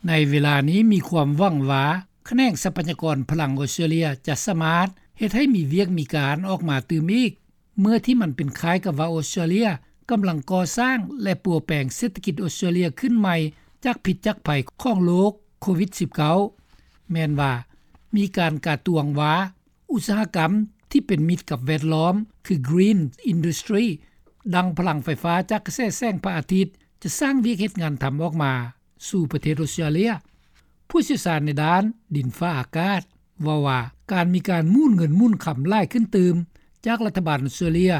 ໃນເວລານີ້ມີຄວາມຫວັງວ່າ ຂະແໜງຊັບພະຍາກອນພະລັງອອສເຕຣເລັຽຈະສາມາດເຮັດໃຫ້ມີວຽກມີການອອກມາຕື່ມອີກ ເມື່ອທີ່ມັນເປັນຄ້າຍກັບວ່າອອສເຕຣເລັຽກຳລັງກໍ່ສ້າງ ແລະປົວແປງເສດຖະກິດອອສເຕຣເລັຽຂຶ້ນໃໝ່ ຈາກພິດຈາກໄພຂອງໂລກໂຄວິດ-19. ແມ່ນວ່າມີການກາດຕວງວ່າ ອຸດສາຫະກຳທີ່ເປັນມິດກັບແວດລ້ອມ ຄື Green Industry ດັ່ງພະລັງໄຟຟ້າຈາກກະແສແສງພະອາທິດ ຈະສ້າງວຽກເຮັດງານທຳອອກມາສູ່ປະເທດອອສເຕຣເລັຽ. ຜູ້ຊ່ຽວຊານໃນດ້ານດິນຟ້າອາກາດເວົ້າວ່າ ການມີການໝູນເງິນໝູນຄຳຫຼາຍຂຶ້ນຕື່ມຈາກລັດຖະບານອອສເຕຣເລັຽ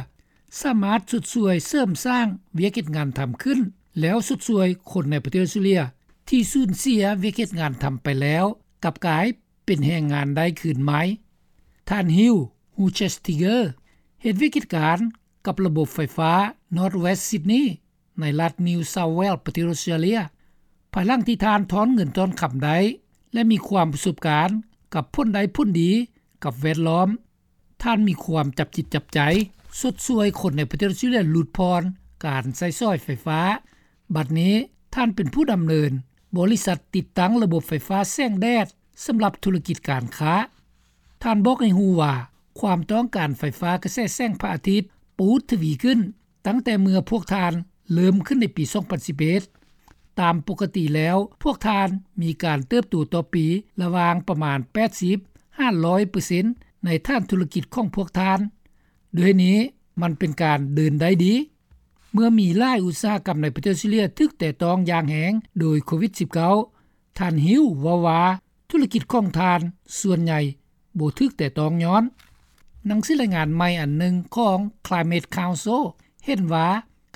ສາມາດຊົດຊ່ວຍເສີມສ້າງວຽກເຮັດງານທຳຂຶ້ນ ແລ້ວຊົດຊ່ວຍຄົນໃນປະເທດອອສເຕຣເລັຽທີ່ສູນເສຍວຽກເຮັດງານທຳໄປແລ້ວ ກັບກາຍເປັນແຮງງານໄດ້ຄືນໃໝ່. ທ່ານ Hugh Huchestiger ເຮັດວຽກເຮັດການກັບລະບົບໄຟຟ້າ North West Sydney ໃນລັດ New South Wales ປະເທດອອສເຕຣເລັຽ. ພາຍຫຼັງທີ່ທ່ານຖອນເງິນຖອນຄຳໄດ້ ແລະມີຄວາມປະສົບການກັບຜົນໄດ້ຜົນດີກັບແວດລ້ອມ, ທ່ານມີຄວາມຈັບຈິດຈັບໃຈຊົດຊ່ວຍຄົນໃນປະເທດອອສເຕຣເລັຽຫຼຸດຜ່ອນການໃຊ້ສອຍໄຟຟ້າ. ບັດນີ້ທ່ານເປັນຜູ້ດຳເນີນບໍລິສັດຕິດຕັ້ງລະບົບໄຟຟ້າແສງແດດສຳລັບທຸລະກິດການຄ້າ. ທ່ານບອກໃຫ້ຮູ້ວ່າ ຄວາມຕ້ອງການໄຟຟ້າກະແສແສງພະອາທິດປູດທະວີຂຶ້ນ ຕັ້ງແຕ່ເມື່ອພວກທ່ານເລີ່ມຂຶ້ນໃນປີສອງພັນສິບເອັດ. ຕາມປົກກະຕິແລ້ວ ພວກທ່ານມີການເຕີບໂຕຕໍ່ປີລະຫວ່າງປະມານແປດສິບຫາຮ້ອຍເປີເຊັນໃນຖານທຸລະກິດຂອງພວກທ່ານ. ດ້ວຍນີ້ມັນເປັນການເດີນໄດ້ດີ. ເມື່ອມີຫຼາຍອຸດສາຫະກຳໃນປະເທດອອສເຕຣເລັຽຖືກແຕະຕ້ອງຢ່າງແຮງໂດຍໂຄວິດ-19, ທ່ານ Hugh ເວົ້າວ່າ ທຸລະກິດຂອງທ່ານສ່ວນໃຫຍ່ບໍ່ຖືກແຕະຕ້ອງຍ້ອນ. ໜັງສືລາຍງານໃໝ່ອັນໜຶ່ງຂອງ Climate Council ເຫັນວ່າ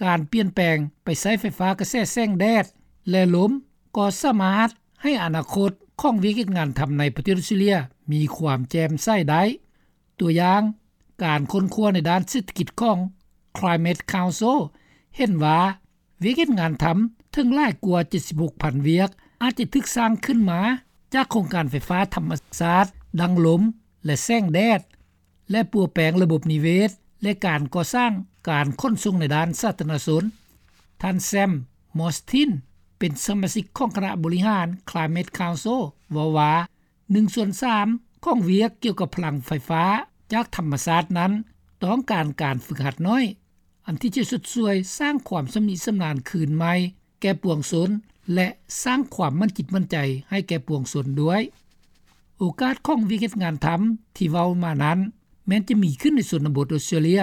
ການປ່ຽນແປງໄປໃຊ້ໄຟຟ້າກະແສແສງແດດ ແລະ ລົມ ກໍສາມາດໃຫ້ອະນາຄົດຂອງວຽກເຮັດງານທຳໃນປະເທດອອສເຕຣເລັຽມີຄວາມແຈ່ມໃສໄດ້. ຕົວຢ່າງ, ການຄົ້ນຄວ້າໃນດ້ານເສດຖະກິດຂອງ Climate Council ເຫັນວ່າ ວຽກເຮັດງານທຳເຖິງຫຼາຍກວ່າເຈັດສິບຫົກພັນວຽກ ອາດຈະຖືກສ້າງຂຶ້ນມາຈາກໂຄງການໄຟຟ້າທຳມະຊາດ ດັ່ງລົມ ແລະ ແສງແດດ ແລະ ປົວແປງລະບົບນິເວດ ແລະ ການກໍ່ສ້າງການຂົນສົ່ງໃນດ້ານສາທາລະນະຊົນ. ທ່ານ Sam Mostyn ເປັນສະມາຊິກຂອງຄະນະບໍລິຫານ Climate Council ເວົ້າວ່າ ໜຶ່ງສ່ວນສາມຂອງວຽກກ່ຽວກັບພະລັງໄຟຟ້າຈາກທຳມະຊາດນັ້ນ ຕ້ອງການການຝຶກຫັດໜ້ອຍ ອັນທີ່ຈະຊົດຊ່ວຍສ້າງຄວາມຊຳນິຊຳນານຄືນໃໝ່ແກ່ປວງຊົນ ແລະ ສ້າງຄວາມໝັ້ນຈິດໝັ້ນໃຈໃຫ້ແກ່ປວງຊົນດ້ວຍ. ໂອກາດຂອງວຽກເຮັດງານທຳທີ່ເວົ້າມານັ້ນ ແມ່ນຈະມີຂຶ້ນໃນຊົນນະບົດອອສເຕຣເລັຽ,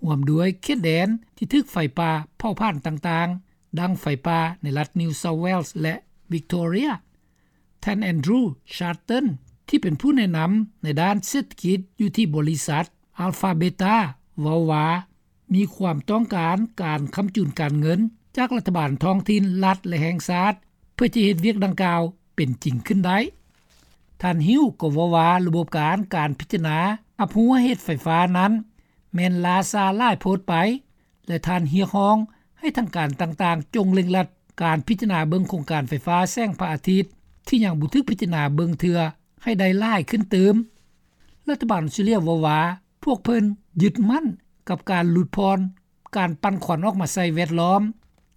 ຮ່ວມດ້ວຍເຂດແດນທີ່ຖືກໄຟປ່າເຜົາຜານຕ່າງໆ ດັ່ງໄຟປ່າໃນລັດ New South Wales ແລະ Victoria. ທ່ານ Andrew Charlton ທີ່ເປັນຜູ້ແນະນຳໃນດ້ານເສດຖະກິດຢູ່ທີ່ບໍລິສັດ Alpha Beta ເວົ້າວ່າ ມີຄວາມຕ້ອງການການຄ້ຳຈູນການເງິນຈາກລັດຖະບານທ້ອງຖິ່ນ, ລັດ ແລະ ແຫ່ງຊາດ ເພື່ອຈະເຮັດວຽກດັ່ງກ່າວເປັນຈິງຂຶ້ນໄດ້. ທ່ານ Hugh ກໍເວົ້າວ່າ ລະບົບການ ການພິຈາລະນາຮັບຮູ້ເຫດໄຟຟ້ານັ້ນ ແມ່ນລ້າຊ້າຫຼາຍໂພດໄປ ແລະ ທ່ານຮຽກຮ້ອງໃຫ້ທາງການຕ່າງໆ ຈົ່ງເລັ່ງລັດການພິຈາລະນາເບິ່ງໂຄງການໄຟຟ້າແສງພະອາທິດທີ່ຍັງບໍ່ຖືກພິຈາລະນາເບິ່ງເທື່ອໃຫ້ໄດ້ຫຼາຍຂຶ້ນຕື່ມ. ລັດຖະບານອອສເຕຣເລັຽເວົ້າວ່າ ພວກເພິ່ນຍຶດໝັ້ນກັບການຫຼຸດຜ່ອນການປັ່ນຄວັນອອກມາໃສ່ແວດລ້ອມ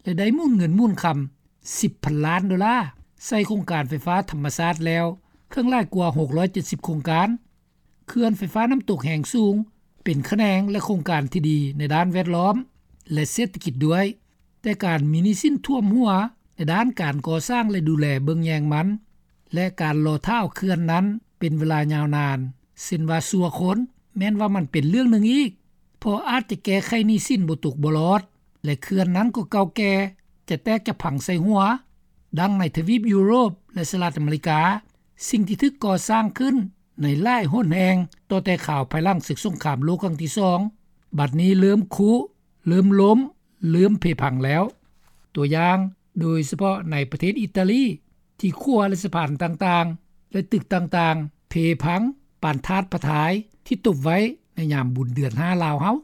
ແລະ ໄດ້ໝູນເງິນໝູນຄຳສິບພັນລ້ານໂດລາໃສ່ໂຄງການໄຟຟ້າທຳມະຊາດແລ້ວ ເຖິງຫຼາຍກວ່າຫົກຮ້ອຍເຈັດສິບໂຄງການ. ເຂື່ອນໄຟຟ້ານ້ຳຕົກແຮງສູງເປັນຂະແໜງ ແລະ ໂຄງການທີ່ດີໃນດ້ານແວດລ້ອມ ແລະ ເສດຖະກິດດ້ວຍ, ແຕ່ການມີໜີ້ສິນຖ້ວມຫົວໃນດ້ານການກໍ່ສ້າງ ແລະ ດູແລເບິ່ງແຍງມັນ ແລະ ການລໍຖ້າເອົາເຂື່ອນນັ້ນເປັນເວລາຍາວນານ ເຊັ່ນວ່າຊົ່ວຄົນ ແມ່ນວ່າມັນເປັນເລື່ອງໜຶ່ງອີກ, ເພາະອາດຈະແກ້ໄຂໜີ້ສິນບໍ່ຕົກບໍ່ລອດ ແລະ ເຂື່ອນນັ້ນກໍເກົ່າແກ່ ຈະແຕກຈະພັງໃສ່ຫົວ. ດັ່ງໃນທະວີບຢູໂຣບ ແລະ ສະຫະລັດອາເມລິກາ, ສິ່ງທີ່ຖືກກໍ່ສ້າງຂຶ້ນ ໃນຫຼາຍຫົນແຫ່ງຕໍ່ແຕ່ຄາວພາຍຫຼັງເສິກສົງຄາມໂລກຄັ້ງທີສອງ ບັດນີ້ເລີ່ມຄຸ, ເລີ່ມລົ້ມ, ເລີ່ມເພພັງແລ້ວ. ຕົວຢ່າງ, ໂດຍສະເພາະໃນປະເທດອີຕາລີ ທີ່ຂົວ ແລະ ສະພານຕ່າງໆ ແລະ ຕຶກຕ່າງໆ ເພພັງປານທາດພະທາຍທີ່ຕົບໄວ້ໃນຍາມບຸນເດືອນຫ້າລາວເຮົາ.